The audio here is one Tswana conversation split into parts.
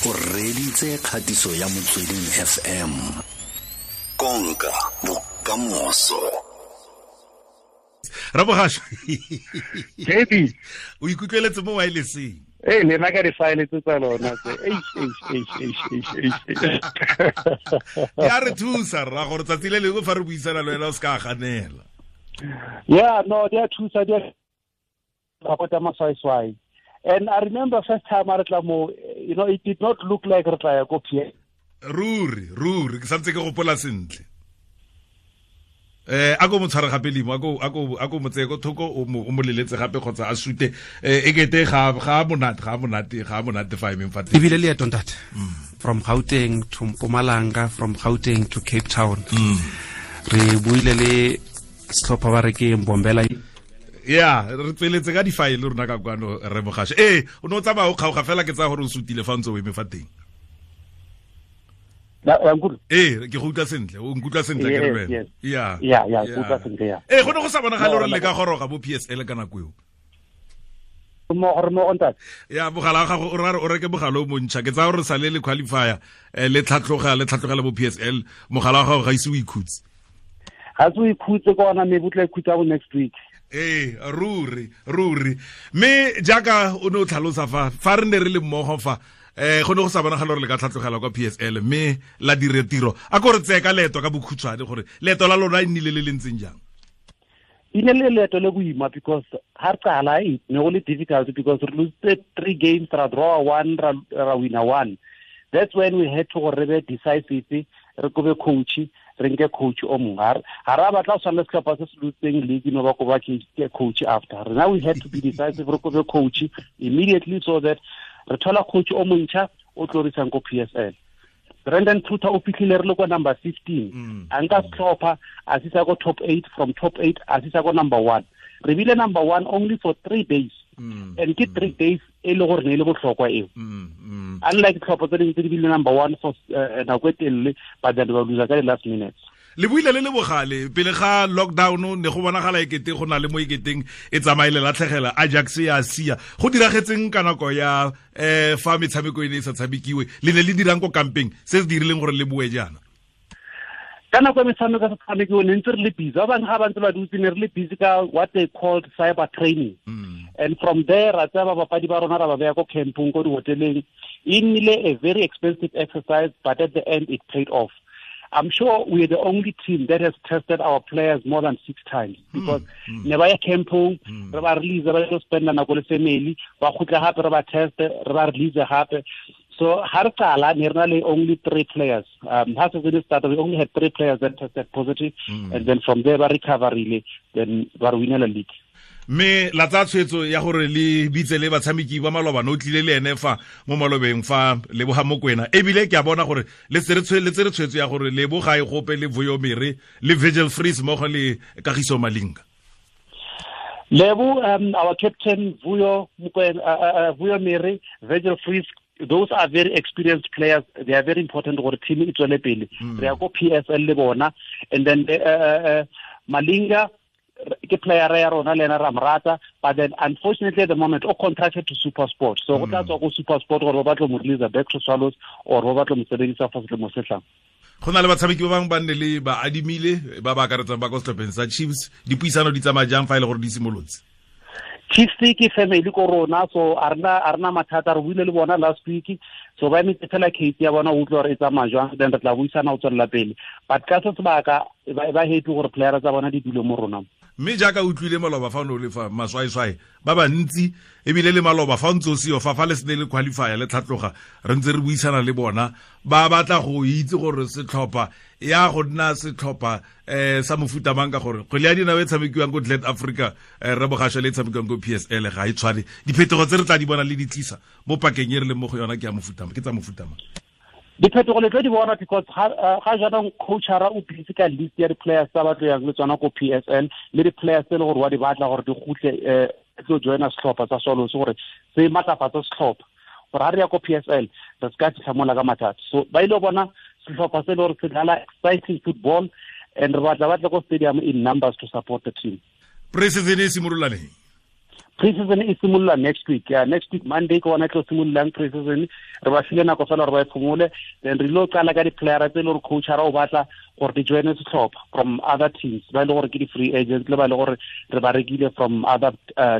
O reditse kgatiso ya Motsweding FM. Konka bokamoso. Rabogasho. JB. O ikutlweletse mo wirelesseng. Ee, le nna ka di-file tse tsa lona tse. Eish, eish, eish, eish, eish, eish. Ya re thusa rra gore tsatsi le lengwe fa re buisana le wena o se ka ganela. Yeah, no, di a thusa, di a support maswaiswai. And I remember first time I retla mo, it did not look like re tla ya ko PSL. Ruri, ruri, ke santse ke gopola sentle. A ko mo tshware gape limo, a ko mo tseye ko thoko, o mo leletse gape kgotsa a sute. E kete ga monate fa emeng fa teng. Ebile leeto ntate. From Gauteng to Mpumalanga, from Gauteng to Cape Town. Re buile le setlhopha ba re ke Mbombela. Yeah, re tsweletse ka di-file rona ka kwano re Mogashe. Ee, o ne o tsamaya o kgaoga fela ke tsaya gore o sutile fa o ntse o eme fa teng. Ee, ke go utlwa sentle, o nkutlwa sentle ke re wena. Yeah. Yeah, yeah, ke utlwa sentle, yeah. Ee, go ne go sa bonagale gore le ka goroga bo PSL ka nako eo. Mo ntate. Ya, mogala wa gago o ra re o reke mogala o montšha, ke tsaya gore sale le qualifier, le tlhatlogela bo PSL, mogala wa gago ga ise o ikhutse. Ga se o ikhutse ka ona, maybe o tla ikhutsa bo next week. Ee, ruri, ruri. Mme jaaka o ne o tlhalosa fa re ne re le mmogo fa, go ne go sa bonagala gore le ka tlhatlogela kwa PSL, mme la dire tiro. A ko re tseye ka leeto ka bokhutshwane gore leeto la lona e nnile le le ntseng jang? E ne le leeto le boima because ha re qala e ne go le difficult because re lose 3 games, ra draw 1, ra win 1. That's when we had to gore re be decisive, re kobe coach, re nke coach o mongwe. Ha ra batla go tshwana le setlhopha se se lotseng league no ba koba ke coach after. Now we had to be decisive, re kobe coach immediately so that re thola coach o montšha o tlo re isang ko PSL. Brandon Truter o fitlhile re le ko number 15. A nka setlhopha a sisa ko top 8, from top 8 a sisa ko number 1. Re bile number 1 only for 3 days. And ke 3 days e le gore ne e le botlhokwa eo. Unlike tlhopho tse dingwe tse di bile number 1 for nako e telele, but then ba loser ka the last minutes. Le buile le le bogale pele ga lockdown ne go bonagala ekete go na le mo eketeng e tsamaile latlhegela Ajax ya sia. Go diragetseng ka nako ya fa metshameko e ne e sa tshamekiwe, le ne le dirang ko kampeng se se dirileng gore le boe jaana? Ka nako ya metshameko e sa tshamekiwe ne ntse re le busy. Ba bangwe ga ba ntse ba dutse ne re le busy ka what they called cyber training. And from there ra tsaya babapadi ba rona ra ba beya ko campong, ko dihoteleng. E nnile a very expensive exercise, but at the end it paid off. I'm sure we are the only team that has tested our players more than 6 times because ne ba ya campong, re ba release, ba yo spend nako le family, ba khutla hape re ba test, re ba release hape. So ha re qala ne re na le only 3 players. Ha season started we only had 3 players that tested positive, and then from there ba recover really, then ba re winela league. Mme la tsaya tshwetso ya gore le bitse le batshameki ba maloba, no tlile le ene fa mo malobeng fa Leboga Mokoena. Ebile ke a bona gore le tsere tshwetso ya gore Leboga e gope le Vuyo Mere le Virgil Vries mmogo le Kagiso Malinga. Lebo, our captain Vuyo Mokoena, Vuyo Mere, Virgil Vries, those are very experienced players. They are very important gore team e tswele pele. Re ya ko PSL le bona, and then Malinga ke player ya rona le ena ra morata, but then unfortunately at the moment o contracted to SuperSport, so go tla tswa go SuperSport gore ba batlo mo release back to Swallows or ba batlo mo sebedisa for selemo se tlang. Go na le batshameki ba bangwe ba nne le ba adimile ba ba akaretsang ba ko setlhopheng sa Chiefs. Dipuisano di tsamaya jang fa e le gore di simolotse? Chiefs ke family ko rona, so a rena mathata, re buile le bona last week, so ba emetse fela case ya bona o utlwa gore e tsamaya jwang, then re tla buisana go tswelela pele. But ka se sebaka ba happy gore player tsa bona di dule mo rona. Mme jaaka o utlwile maloba fa o ne o le fa maswaiswai ba bantsi, ebile le maloba fa o ntse o seo fa le sene le qualifier le tlhatloga, re ntse re buisana le bona, ba batla go itse gore setlhopha ya go nna setlhopha sa mofuta mang, ka gore kgwele ya dinao e tshamekiwang ko Glad Africa, re Bogashe le e tshamekiwang ko PSL ga e tshwane. Diphetogo tse re tla di bona le di tlisa mo pakeng e re leng mo go yona ke ya mofuta mang, ke tsa mofuta mang? Diphetogo le tlo di bona because ga jaanong coachara o busy ka list ya di-players tsa ba tlo yang le tsona ko PSL, le di-players tse e le gore wa di batla gore di kgutle, tlo joina setlhopha sa Swallows gore se matlafatse setlhopha gore ha re ya ko PSL re se ka fitlha mola ka mathata. So ba ile bona setlhopha se e le gore se dlala exciting football, and re batla ba tle ko stadium in numbers to support the team. Pre-season e simolola neng? Pre-season e simolola next week. Yeah, next week Monday ke gona tlo simololang pre-season. Re ba file nako fela gore ba e phomole, then re lo qala ka di-playera tse e le gore coachara o batla gore di joine setlhopha from other teams, ba e le gore ke di-free agents le ba e le gore re ba rekile from other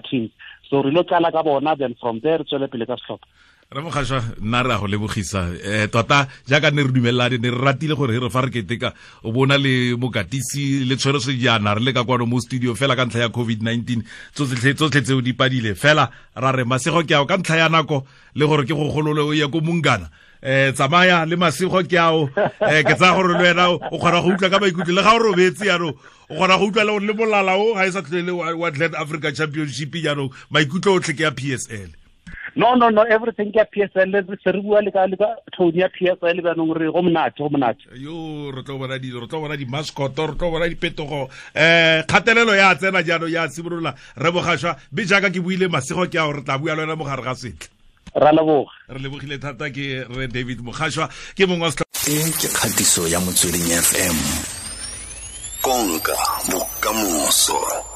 teams. So re lo qala ka bona, then from there re tswele pele ka setlhopha. Re Mogashoa, nna re a go lebogisa. Tota jaaka ne re dumelane, ne re ratile gore re fa re keteka o bona le mokatisi le tshwere sejana re le ka kwano mo studio fela ka ntlha ya COVID-19, tsotlhe tseo di padile fela. Ra re masego ke ao ka ntlha ya nako le gore ke go golole o ye ko Mungana. Tsamaya le masego ke ao. Ke tsaya gore le wena o kgona go utlwa ka maikutlo le ga o robetse jaanong, o kgona go utlwa le molala o ga e sa tlhole wa Glen Africa Championship jaanong, maikutlo otlhe ke ya PSL. No, everything ke ya PSL, se re bua le ka tone ya PSL jaanong, re go monate, go monate. Yo, re tlo bona dilo, re tlo bona di-mascot, re tlo bona diphetogo. Kgatelelo ya tsena jaanong ya simolola. Re Mogashoa, mme jaaka ke buile masego ke ao, re tla bua le wena mo gare ga setlha. Ra leboga. Re lebogile thata ke re David Mogashoa, ke mongwe wa E ke kgatiso ya Motsweding FM. Konka bokamoso.